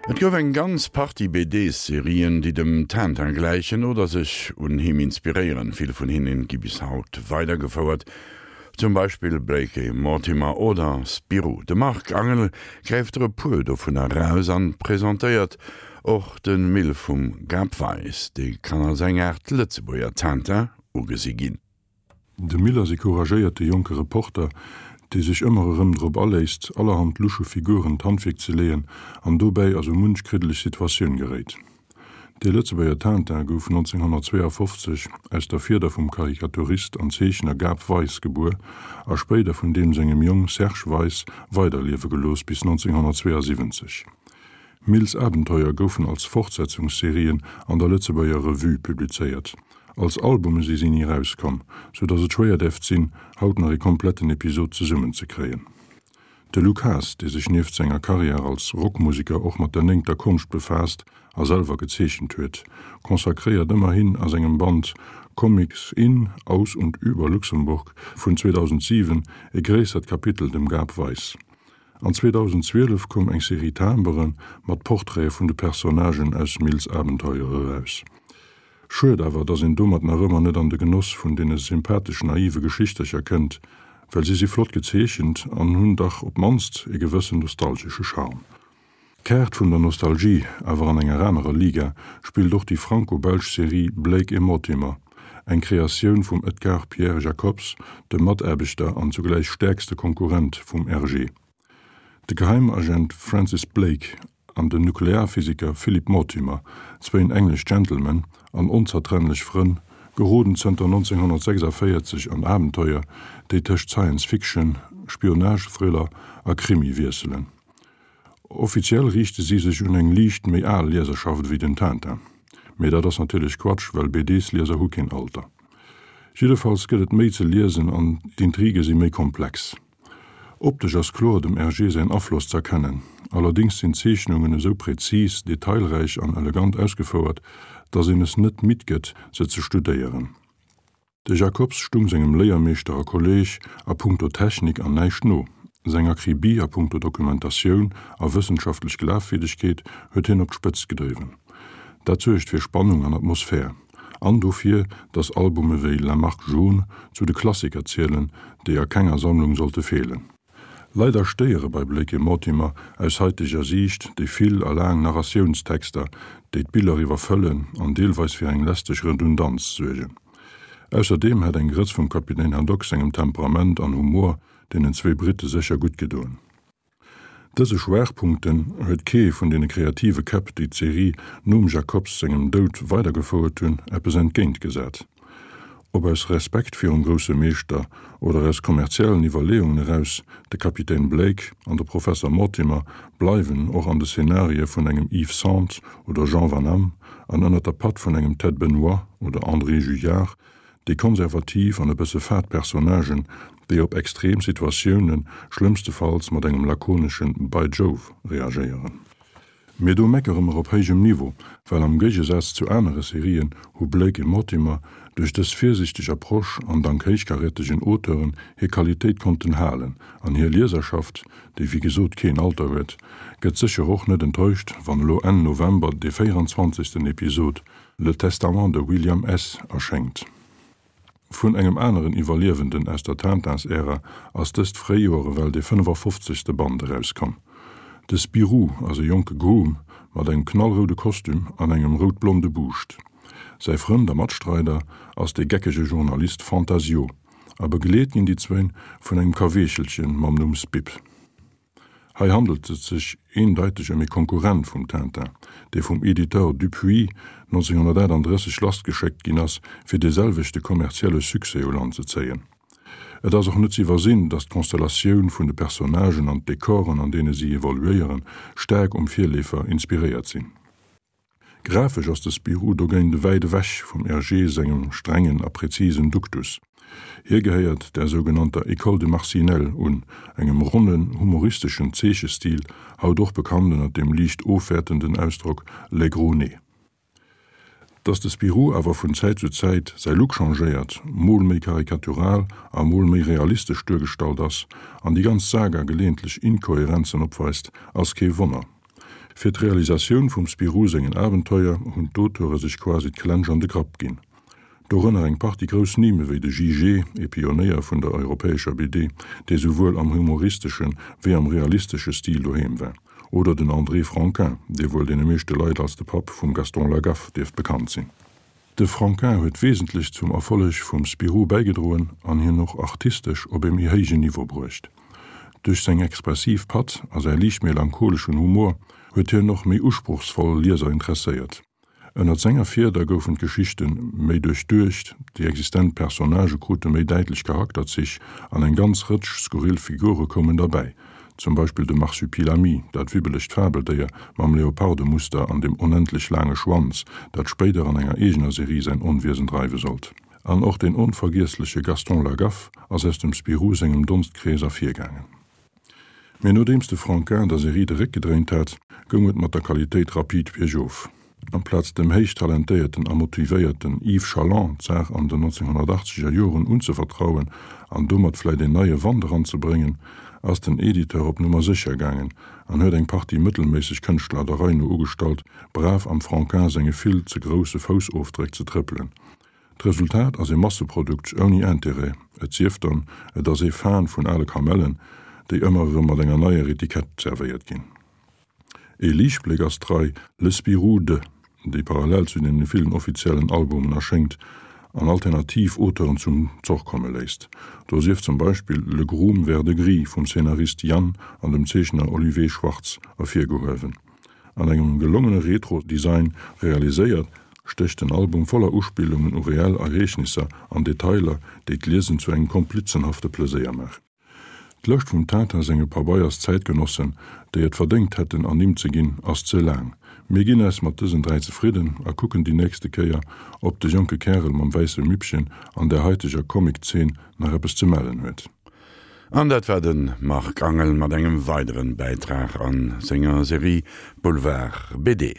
Et gouf eng ganz Partie BD-Serien, déi dem Tintin gläichen oder sech un him inspiréieren. Vill vun hinnen gi bis haut weidergefouert, zum Beispill Blake et Mortimer oder Spirou. De Marc Angel gräift der e puer dovunner eraus an presentéiert och de Mill vum Gab Weis. Dee kann als eng Aart Lëtzebuerger Tintin ugesi ginn. De Mill ass e couragéierte jonke Reporter, dee sech ëmmer erëm drop aléisst, allerhand lusche Figuren d'Handwierk ze leeën an dobäi a sou munch kriddeleg Situatioun geréit. De Lëtzebuerger Tintin gouf 1952 aus der Fieder vum Karikaturist an Zeechner Gab Weis gebuer a spéider vun deem sengem Jong Serge Weis weiderliewe gelooss bis 1972. Mills Abenteuer goufen als Fortsetzungsserien an der Lëtzebuerger Revue publizéiert. Als Albume si si ni erauskomm, sou datt et schwéier däerft sinn, haut nach ee kompletten Episod zesummen ze kréien. De Luc Haas, dee sech nieft senger Karriär als Rockmuseker och mat der néngter Konscht befaasst a selwer gezeechent huet, consacréiert ëmmerhin a sengem Band Comics in, aus und über Luxemburg vun 2007 e gréissert Kapitel dem Gab Weis. An 2012 koum eng Serie Timbere mat Portraite vun de Personnagen aus Mills Abenteuer eraus. Schued awer, dass een domat nach ëmmer net an de Genoss vun deene sympathesch naive Geschichtercher kënnt, well si si flott gezeechent an hunn dach op d'mannst e gewëssen nostalgesche Charme. D'Kaart vun der Nostalgie, awer an enger anerer Liga, spillt och déi franco-belsch Serie Blake et Mortimer, eng Kreatioun vum Edgar Pierre Jacobs, dem Mataarbechter an zugläich stäerkste Konkurrent vum Hergé. De Geheimagent Francis Blake an den Nuklearphysiker Philip Mortimer, zwéin englesch Gentlemen an onzertrennlech Frënn, geroden zënter 1946 an Abenteuer, déi tëscht Science-Fiction, Spionage-Thriller a Krimi wiesselen. Offiziell riichte si sech un eng liicht méi al Lieserschaft ewéi den Tintin. Mee dat ass natierlech Quatsch, well BDs-Lieser hu keen Alter. Jiddefalls gëtt et méi ze liesen an d'Intrige si méi komplex. Optesch ass kloer dem Hergé säin Afloss z'erkennen, allerdéngs sinn d'Zeechnungen esou präzis, detailräich an elegant ausgefouert, dass een es net midd gëtt, se ze studéieren. De Jacobs stung sengem Léiermeeschter a Kolleeg a punkto Technik an näischt no. Seng Akribie a punkto Dokumentatioun a wëssenschaftlech Glafwierdegkeet huet hien op d'Spëtzt gedriwwen. Dat suergt fir Spannung an Atmosphär. An dofir, datt Albume wéi La Marque Jaune zu de Klassiker zielen, déi a kenger Sammlung sollte feelen. Leider stéiere bei Blake et Mortimer aus haiteger Siicht déi vill a laang Narratiounstexter, déi d'Biller iwwerfëllen an deelweis fir eng lästeg Redundanz suergen. Ausserdeem hätt eng Grëtz vum Kapitän Haddock sengem Temperament an Humor deenen zwee Britte sécher gutt gedoen. Dëse Schwaachpunkten huet kee vun deene kreative Käpp, déi d'Serie nom Jacobs sengem Doud weidergefouert hunn, eppes entgéintgesat. Ob aus Respekt virum grousse Meeschter oder aus kommerziellen Iwwerleeungen eraus, de Kapitän Blake an de Professer Mortimer bleiwen och an de Szenarie vun engem Yves Sente oder Jean Van Hamme an ënner der Patt vun engem Ted Benoit oder André Juillard déi konservativ an e bësse fad Personnagen, déi op extrem Situatioune schlëmmstefalls mat engem lakonesche By Jove reagéieren. Mee do meckere mer op héijem Niveau, well am Géigesaz zu anere Serien hu Blake et Mortimer duerch dës virsiichteg Approche an dank héichkarätegen Auteuren hir Qualitéit konnten halen an hir Lieserschaft, déi wéi gesot keen Alter huet, gëtt sécher och net enttäuscht, wann elo Enn November dee 24. Episod Le Testament de William S. erschéngt. Vun engem aneren Iwwerliewenden aus der Tintins-Ära ass dëst Fréijoer ewell dee 55. Band erauskomm. De Spirou ass e jonke Groom mat engem knallroude Kostüm an engem rout-blonde Buuscht. Säi Frënd a Matstreider ass de geckege Journalist Fantasio a begleet ginn déi zwéin vun engem Kaweechelchen mam Numm Spip. Hei handelt et sech eendeiteg ëm ee Konkurrent vum Tintin, dee vum Editeur Dupuis 1938 lassgeschéckt ginn ass, fir dee selwechte kommerzielle Succès u Land ze zéien. Et ass och net z'iwwersinn, datt d'Konstellatioun vun de Personnagen an d'Dekoren, an deene si evoluéieren, staark um Virleefer inspiréiert sinn. Grafesch ass de Spirou dogéint wäit ewech vum Hergé sengem strengen a präzisen Duktus. Hie gehéiert der sougenannter École de Marcinelle un, engem ronnen, humoristeschen Zeechestil, haut och bekannt ënner dem liicht ofwäertenden Ausdrock les gros nez. Datt de Spirou awer vun Zäit zu Zäit säi Look changéiert, mol méi karikatural a mol méi realistesch duergestallt ass an déi ganz Saga geleeëntlech Inkohärenzen opweist, ass kee Wonner. Fir d'Realisatioun vum Spirou sengen Abenteuer hunn d'Auteure sech quasi d'Klensch an de Grapp ginn. Dorënner eng Partie grouss Nimm ewéi de Jijé, ee Pionéier vun der europäescher BD, dee souwuel am humoristeschen wéi am realistesche Stil doheem war, oder den André Franquin, dee wuel deene meeschte Leit als de Papp vum Gaston Lagaffe dierft bekannt sinn. De Franquin huet wesentlech zum Erfolleg vum Spirou bäigedroen an hien och artistesch op ee méi héijen Niveau bruecht. Duerch seng expressiv Patt a säi liicht melancholeschen Humor huet hien och méi usprochsvoll Lieser interesséiert. Ënnert senger Fieder goufen d'Geschichte méi duerchduecht, déi existent Personnagë krute méi däitlech Charakterzich an eng ganz Rëtsch skurril Figure koumen derbäi, zum Beispill de Marsupilami, dat wibbelegt Fabeldéier mam Leopardemuster an dem onendlech laange Schwanz, dat spéider an enger eegener Serie säin Onwiesen dreiwe sollt. An och den onvergiessleche Gaston Lagaffe ass aus dem Spirou sengem Donstkrees ervirgaangen. Mee nodeems de Franquin der Serie de Réck gedréint hat, goung et mat der Qualitéit rapid biergof. Amplaz dem héich talentéierten a motivéierten Yves Chaland d'Saach an den 1980 er Joren unzevertrauen an domat vläit een neie Wand eranzebréngen, ass den Editeur op Nummer sécher gaangen an huet eng Partie mëttelméisseg Kënschtler der Rei no ugestallt, brav am Franquin senge vill ze grousse Foussofdréck ze trëppelen. D'Resultat ass ee Masseprodukt ouni Intérêt, et sief dann, et ass ee Fan vun ale Kamellen, déi ëmmer erëm mat enger neier Etikett zerwéiert ginn. Ee Liichtbléck ass d'Rei Le Spirou de, déi parallel zu deene villen offiziellen Albumen erschéngt an alternativ Auteuren zum Zoch komme léisst. Do sief zum Beispill Le Groom Vert-de-Gris vum Szenarist Yann an dem Zeechner Olivier Schwartz ervirgehuewen. An engem gelongene Retro-Design realiséiert, stécht den Album voller Uspillungen u reell Ereegnisser an Detailer, déi d'Liesen zu engem komplizenhafte Pleséier maachen. D'Lëscht vum Tintin senge Pabeiers-Zäitgenossen, déi et verdéngt hätten ernimmt ze ginn, ass ze laang. Mir ginn eis mat dësen 3 zefridden a kucken déi nächste Kéier, ob de jonke Kärel mam wäisse Mippchen an der haiteger Comic-Zeen nach eppes ze mellen huet. An dat war de Marc Angel mat engem weideren Bäitrag an senger Serie Boulevard BD.